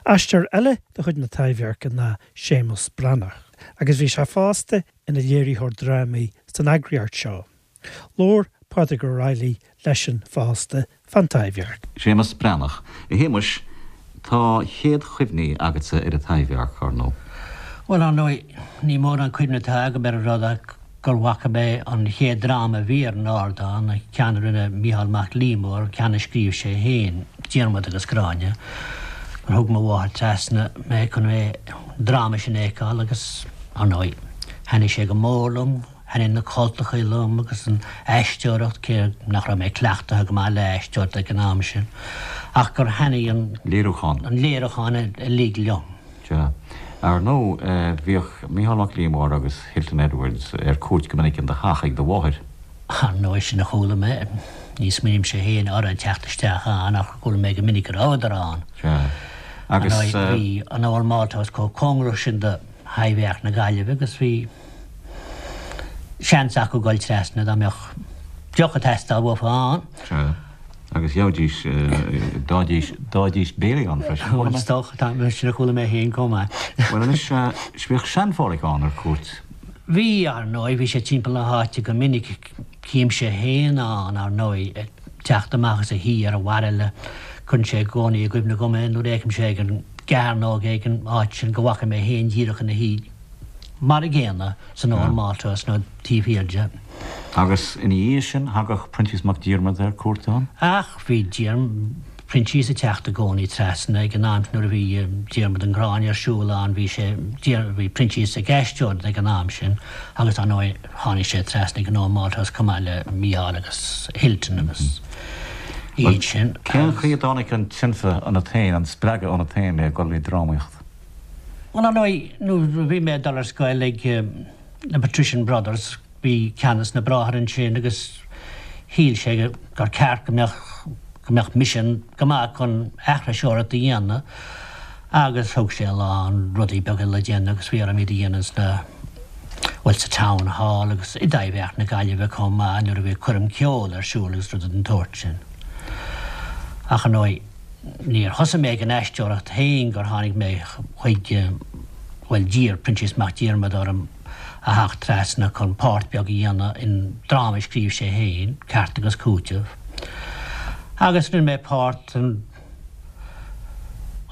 Aisteoir eile de chuid na Taibhdheirce ná Séamus Breathnach, agus bhí sé fosta ina léiritheoir drámaí san eagraíocht seo. Labhair Pádraig Ó Raghallaigh leisean fosta fán Taibhdhearc. Séamus Breathnach. A Shéamuis, tá chéad chuimhní agatsa ar an Taibhdhearc, ar ndóigh. Bhuel, ar ndóigh, ní mórán cuimhne atá agam ar an rud ach gur bhfaca mé an chéad dráma a bhí ar an ardán, an ceann a rinne Mícheál Mac Liammóir, an ceann a scríobh sé féin, Diarmaid agus Gráinne, gur thug mo mháthair trasna mé chun é, an dráma sin a fheiceáil agus, ar ndóigh, thaitnigh sé go mór liom. Thaitnigh na cultachaí liom agus an aisteoireacht, cé nach raibh mé cleachtaithe go maith le aisteoireacht ag an am sin, ach gur thaitnigh an. Léiriúchán. An léiriúchán uilig liom. Sea. Ar ndóigh, bhíodh Mícheál Mac Liammóir agus Hilton Edwards ar cuairt go minic in do theach ag do mháthair. Ar ndóigh, sin a chuala mé. Ní smaoinímse féin orthu ag teacht isteach ann ach chuala mé go minic go rabhadar ann. Sea. Agus. Ar ndóigh, bhí an Old Malthouse chomh cóngarach sin do Thaibhdhearc na Gaillimhe agus bhí. seans acu dul trasna dá mbeadh deoch ag teastáil uafa ann. Sea, agus gheobhaidís, d'fhaighidís, d'fhaighidís béilí ann freisin, chuala mé. Is dócha, tá, sin a chuala mé féin chomh maith. Bhuel anois, bhíodh Sean-Pháraic ann ar cuairt. Bhí, ar ndóigh, bhí sé timpeall na háite go minic, chímse féin ann, ar ndóigh, ag teacht amach as a thigh ar an bhairille, cuireann sé i gcónaí i gcuimhne dhom é nuair a fheicimse ag an gcearnóg é ag an áit sin go bhfaca mé féin díreach ina shuí. Mar a gcéanna san Old Malthouse nó taobh thiar de. Agus ina dhiaidh sin, thagadh Proinsias Mac Diarmada ar cuairt ann? Ach bhí Proinsias ag teacht i gcónaí trasna ag an am nuair a bhí Diarmaid and Gráinne ar siúl ann, bhí sé, bhí Proinsias ag aisteoireacht ag an am sin agus ar ndóigh tháinig sé trasna ag an Old Malthouse chomh maith le Mícheál agus Hilton agus iad sin. Cén chaoi a dtáinig an tionchar ionat féin, an spreagadh ionat féin le dul le drámaíocht? Bhuel, ar ndóigh, nuair a bhí mé ag dul ar scoil ag na Patrician Brothers, bhí ceann des na bráithre ansin agus shíl sé gur ceart go mbeadh, go mbeadh mise go maith chun aithriseoireacht a dhéanamh agus thug sé a lán rudaí beaga le déanamh agus bhí orm iad a dhéanamh sna, bhuel, sa Town Hall agus i dTaibhdhearc na Gaillimhe chomh maith nuair a bhí coirm ceoil ar siúl agus rudaí den tsórt sin. Ach ar ndóigh. Níor thosaigh mé ag an aisteoireacht féin gur tháinig mé chuig, bhuel, d'iarr Proinsias Mac Diarmada orm a theacht trasna chun páirt beag a dhéanamh in dráma a scríobh sé féin, Ceart agus Cúiteamh. Agus rinne mé páirt an,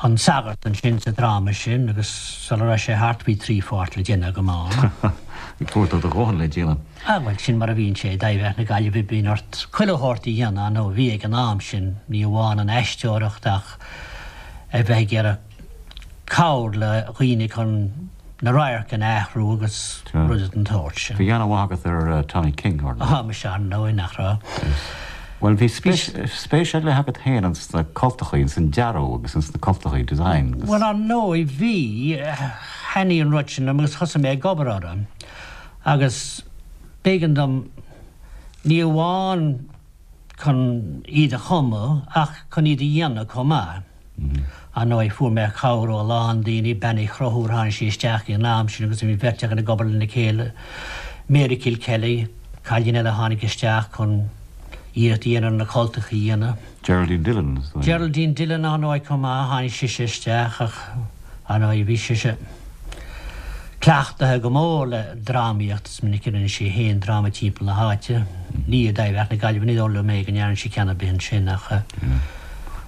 an sagart ansin sa dráma sin agus sula raibh sé thart bhí trí pháirt le déanamh agam ann. Fuair tú do dhóthain le déanamh. Ah, bhuel, sin mar a bhíonn sé i dTaibhdhearc na Gaillimhe, bíonn ort chuile shórt a dhéanamh, nó bhí ag an am sin, ní amháin an aisteoireacht ach a bheith ag iarraidh cabhair le dhaoine chun na radhairc a athrú agus rudaí den tsórt sin. Bhí an-mhaith agat ar Tommy King, ar ndóigh. Ah, muise, ar ndóigh, nach raibh. Bhuel, bhí spéis ar leith agat féin ins na cultachaí, ins an dearadh agus ins na cultachaí, design agus. Bhuel, ar ndóigh, bhí, thaitnigh an rud sin liom agus thosaigh mé ag obair orthu. Agus b'éigean dom, ní amháin chun iad a chumadh ach chun iad a dhéanamh chomh maith. Ar ndóigh, fuair mé cabhair ó a lán daoine, Bean Uí Chonchúir, tháinig sí isteach ag an am sin agus bhí an bheirt againn ag obair lena chéile, Mary Kilkelly, cailín eile a tháinig isteach chun iarracht a dhéanamh ar na cultacha a dhéanamh. Geraldine Dillon, is dóigh. Geraldine Dillon, ar ndóigh, chomh maith, tháinig sise isteach ach, ar ndóigh, bhí sise cleachtaithe go mór le drámaíocht, is minic a rinne sí féin dráma timpeall na háite, ní i dTaibhdhearc na Gaillimhe, ní dóigh liom é go ndearna sí ceann ar bith ansin ach.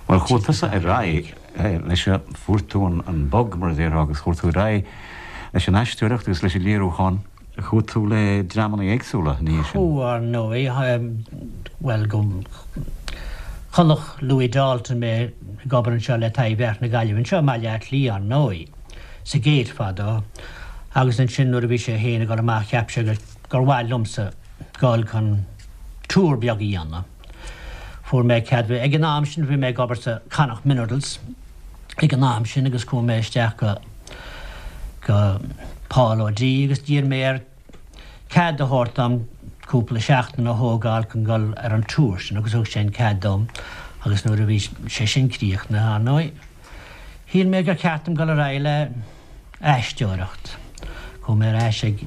Bhuel, chuaigh tusa ar aghaidh leis, fuair tú an bug, mar a déarfá, agus chuaigh tú ar aghaidh leis an aisteoireacht agus leis an léiriúchán. Chuaigh tú le dreamanna éagsúla ina dhiaidh sin. Chuaigh, ar ndóigh. Bhuel, go. Chonaic Louis Dalton mé ag obair anseo le Taibhdhearc na Gaillimhe, anseo i mBaile Átha Cliath, ar ndóigh, sa Gate fadó, agus ansin nuair a bhí sé féin ag dul amach cheap sé gur mhaith liomsa dul chun tour beag a dhéanamh. Fuair mé cead, ag an am sin bhí mé ag obair sa Connacht Minerals ag an am sin agus chuaigh mé isteach go go Paul O'Dea agus d'iarr mé air cead a thabhairt dom cúpla seachtain a thógáil chun dul ar an tour sin agus thug sé an cead dom agus nuair a bhí sé sin críochnaithe, ar ndóigh, shíl mé gur cheart dom dul ar aghaidh le aisteoireacht. Chuaigh mé ar ais ag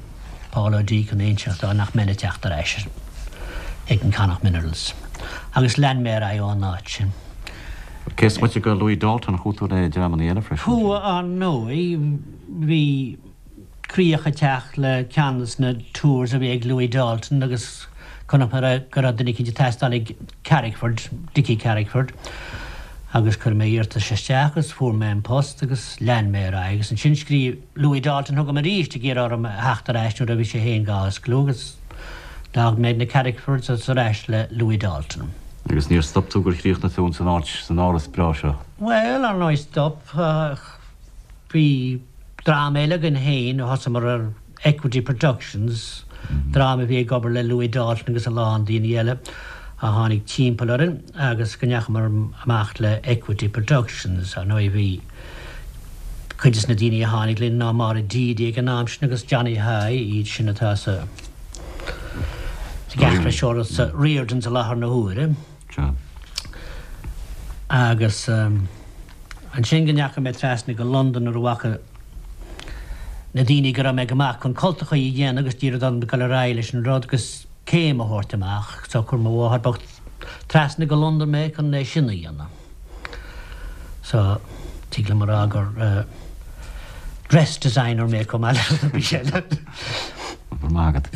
Paul O'Dea chun inseacht dó nach mbeinn ag teacht ar ais ag an Connacht Minerals agus lean mé ar aghaidh ón áit sin. Cé is moite de Louis Dalton, chuaigh tú le dreamanna eile freisin? Chuaigh, ar ndóigh. Bhí críoch ag teacht le ceann de na tours a bhí ag Louis Dalton agus chonaic mé go raibh duine eicínt ag teastáil ag Carrickford, Dickie Carrickford, agus chuir mé iarratas isteach agus fuair mé an post agus lean mé ar aghaidh agus ansin scríobh Louis Dalton chugam arís ag iarraidh orm a theacht ar ais nuair a bhí sé féin dhá osclú agus d'fhág mé na Carrickfords agus ar ais le Louis Dalton. Agus níor stop tú gur chríochnaigh tú ins an áit, san áras breá seo? Bhuel, ar ndóigh stop. Bhí dream eile againn féin a thosaíomar ar Equity Productions, dream a bhí ag obair le Louis Dalton agus a lán daoine eile a tháinig timpeall orainn agus go ndeachamar amach le Equity Productions. Ar ndóigh bhí cuid des na daoine a tháinig linn ná Máire Deedy ag an am sin agus Johnny High, iad sin atá sa ag sa Riordans i láthair na huaire. Agus ansin go ndeachaigh mé trasna go Londain nuair a bhfaca na daoine go raibh mé go maith chun cultachaí a dhéanamh agus d'iarr orm dul ar aghaidh leis an rud agus céim a thabhairt amach. So chuir mo mháthair bocht trasna go Londain mé chun é sin a dhéanamh. So tig liom a rá gur dress designer mé chomh maith le rudaí eile. Go raibh maith agat.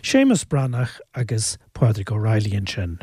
Séamus Breathnach agus Pádraig O'Reilly ansin.